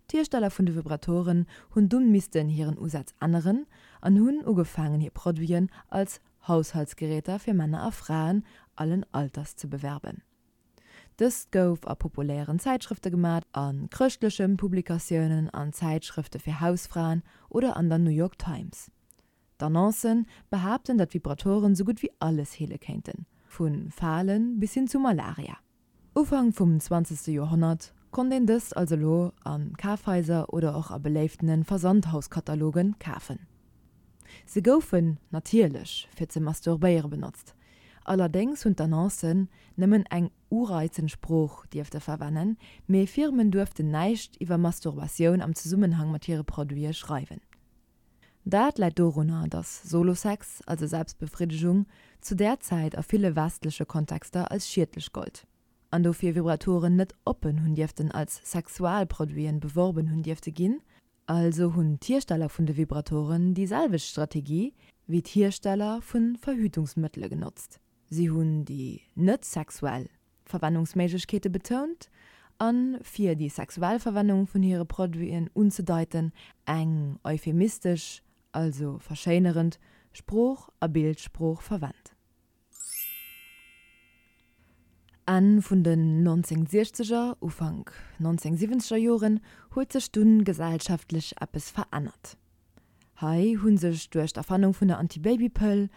D'Hiersteller vun de Vibratoren hunn dunn missten hiren Usaz änneren an hunn ugefaangen hir Produiten als Haushaltsgeräter fir Männer a Fraen allen Alters ze bewerben. Dëst gouf a populären Zäitschrëfte gemat, a chrëschtleche Publikatiounen, an Zäitschrëfte fir Hausfraen oder an der New York Times. D'Annoncen behaapten, datt Vibratoren sou gutt wéi alles heele kéinten, vu Fale bis hin zu Malaria. Ufank vum zwanzegste Joerhonnert konnt een dëst also elo a Kafhaiser oder och a beléiftene Versandhauskataloge kafen. Se goufen natierlech fir ze masturbéiere benotzt, allerdéngs hunn d'Annoncen nëmmen eng ureizend Sprooch dierfte verwennen, mee Firmen duerften näischt iwwer Masturbatioun am Zesummenhang mat hire Produite schreiwen. Dat läit dorunner, dass Solo-Sex, also Selbstbefriddegung, zu där Zäit a ville westleche Kontexter als schiedlech gollt an dofir Vibratoren net oppen hunn dierften als Sexualproduiten beworben hunn dierfte ginn. Also hunn d'Hiersteller vun de Vibratoren déi selwecht Strategie wéi d'Hiersteller vu Verhütungsmëttele genotzt, si hunn déi net sexuell Verwennungsméiglechkeete betount an, fir déi sexuell Verwennung vun hire Produiten unzedeiten, eng euphemistesch, also verschéinerend, Sprooch a Bildsprooch verwennt. Enn vun den 1960er, Ufank 1970er Joren huet sech dunn gesellschaftlech eppes verännert. Hei hu sech duerch d'Erfannung vun der Antibabypëll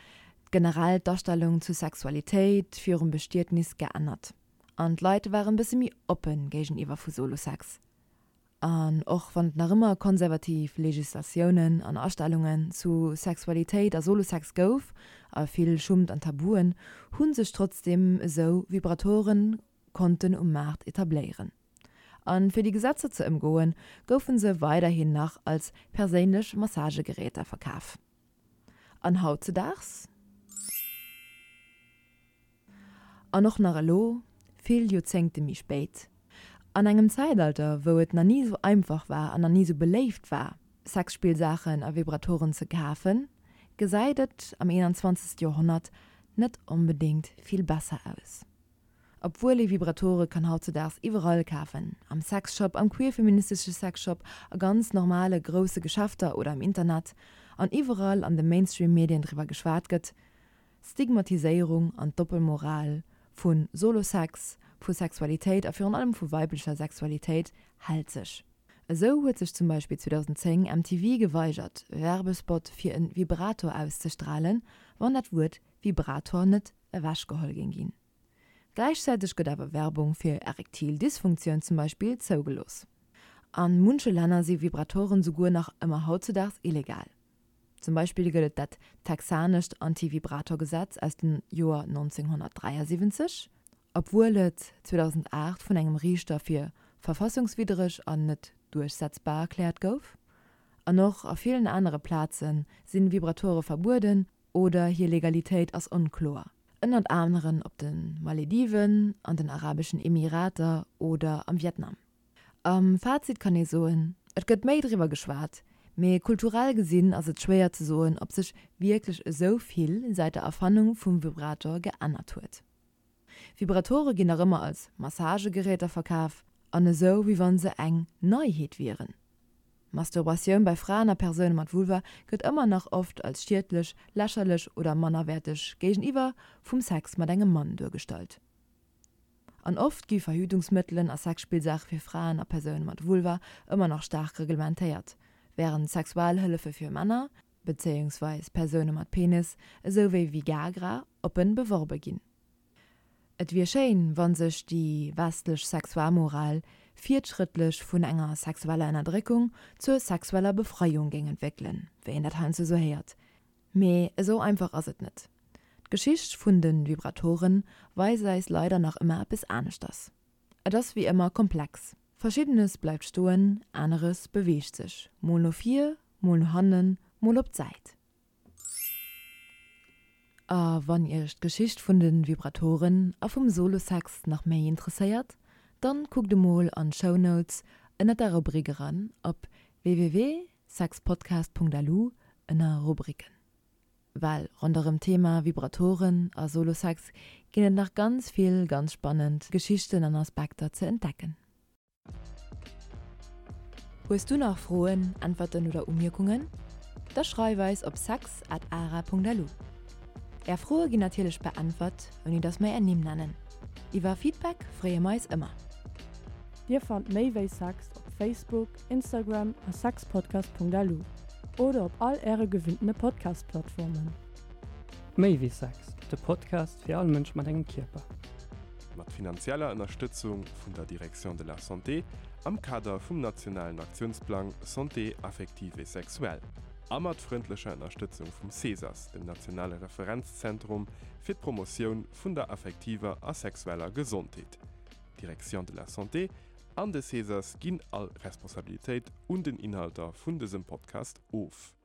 generell d'Astellung zu Sexualitéit virum Bestietnis geännert an d'Leit waren bësse méi oppe géigeniwwer vu Solosex. An och wann et nach ëmmer konservativ Legislatiounen an Astellungen zu Sexualitéit a Solosex gouf a vill Schummt an Tabuen, hu sech trotzdeem esou Vibratoren konnten um Maart etabléieren. An fir déi Gesetzer ze ëmgoen, goufen se weiderhin nach als perséinlech Massagegeräter verkaf. An hautzedaags? An och nach elo, vill Joerzéngte méi spéit, an engem Zäitalter, wou et nach ni esou einfach war an nach ni esou beléift war, Sexspillsaachen a Vibratoren ze kafen, gesäit et am 21. Joerhonnert net onbedéngt vill besser aus. Obwuel ee Vibratore kann hautzedaags iwwerall kafen, am Sexshop, am queer-feministesche Sexshop, a ganz normale grousse Geschäfter oder am Internet, an iwwerall an de Mainstream-Medien driwwer geschwat gëtt, d'Stigmatiséierung an d'Doppelmoral vu Solo-Sex, vu Sexualitéit a virun allem vu weiblecher Sexualitéit hält sech. Esou huet sech zum Beispill 2010 MTV geweigert, Werbespot fir e Vibrator auszestralen, wann dat Wuert Vibrator net ewechgeholl géing ginn. Gläichzäiteg gëtt awer Werbung fir erektil Dysfunktioun zum Beispill zougelooss. A munche Länner si Vibratoren souguer nach ëmmer hautzedaags illegal. Zum Beispill gëtt et dat texanescht Anti-Vibrator-Gesetz aus dem Joer 1973, obwuel et 2008 vun engem Riichter fir verfassungswiddereg an net duerchsetzbar erkläert gouf. An och a villen anere Plaze si Vibratore verbueden oder hir Legalitéit ass onkloer, ënnert aneren op de Malediven, an den Arabeschen Emirater oder am Vietnam. Am Fazit kann ee soen, et gëtt méi driwwer geschwat, mee kulturell gesinn ass et schwéier ze soen, ob sech wierklech esou vill säit der Erfannung vum Vibrator geännert huet. Vibratore ginn nach ëmmer als Massagegeräter verkaf an esou wéi wann se eng Neiheet wieren. Masturbatioun bei Fraen a Persoune mat Vulva gëtt ëmmer nach oft als schiedlech, lächerlech oder mannerwäerteg géigeniwwer vum Sex mat engem Mann duergestallt. An oft gi Verhütungsmëttelen a Sexspillsaache fir Fraen a Persoune mat Vulva ëmmer nach staark reglementéiert, wärend Sexualhëllefe fir Männer, bezéiungsweis Persoune mat Penis, esou wéi Vigagra, oppen beworbe ginn. Et wier schéin, wa sech déi westlech Sexualmoral fiertschrëttlech vun enger sexueller Ënnerdréckung zur sexueller Befreiung géing entwéckelen, wéi een dat heiansdo esou héiert. Mee esou einfach ass et net. D'Geschicht vun de Vibratoren weist eis leider nach ëmmer eppes aneschters. Et ass wéi ëmmer komplex. Verschiddenes bleift stoen, aneres beweegt sech, mol no vir, mol no hannen, mol op d'Säit. A wann iech d'Geschicht vun de Vibratoren a vum Solo-Sex nach méi interesséiert, dann kuckt emol an d'Shownotes ënnert der Rubrik eran op www.sexpodcast.lu ënner Rubriken. Well ronderëm d'Thema Vibratoren a Solo-Sex ginn et nach ganz vill ganz spannend Geschichten an Aspekter ze entdecken. Hues du nach Froen, Äntwerten oder Umierkungen? Da schreif eis op sex at ara.lu. Är Froe ginn natierlech beäntwert, ouni dass mer är Nimm nennen. Iwwer Feedback freeë mer eis ëmmer. Dir fannt méi wéi Sex op Facebook, Instagram a sexpodcast.lu oder op all äre gewinntene Podcast-Plattformen. Méi wéi Sex, de Podcast fir all Mënsch mat engem Kierper. Mat finanzieller Ënnerstëtzung vun der Direction de la Santé am Kader vum nationalen Aktiounsplang Santé affective et sexuelle a mat frëndlecher Ënnerstëtzung vum CESAS, dem nationale Referenzzentrum fir d'Promotioun vun der affektiver a sexueller Gesondheet. D'Direction de la Santé an de CESAS ginn all Responsabilitéit un den Inhalter vun dësem Podcast of.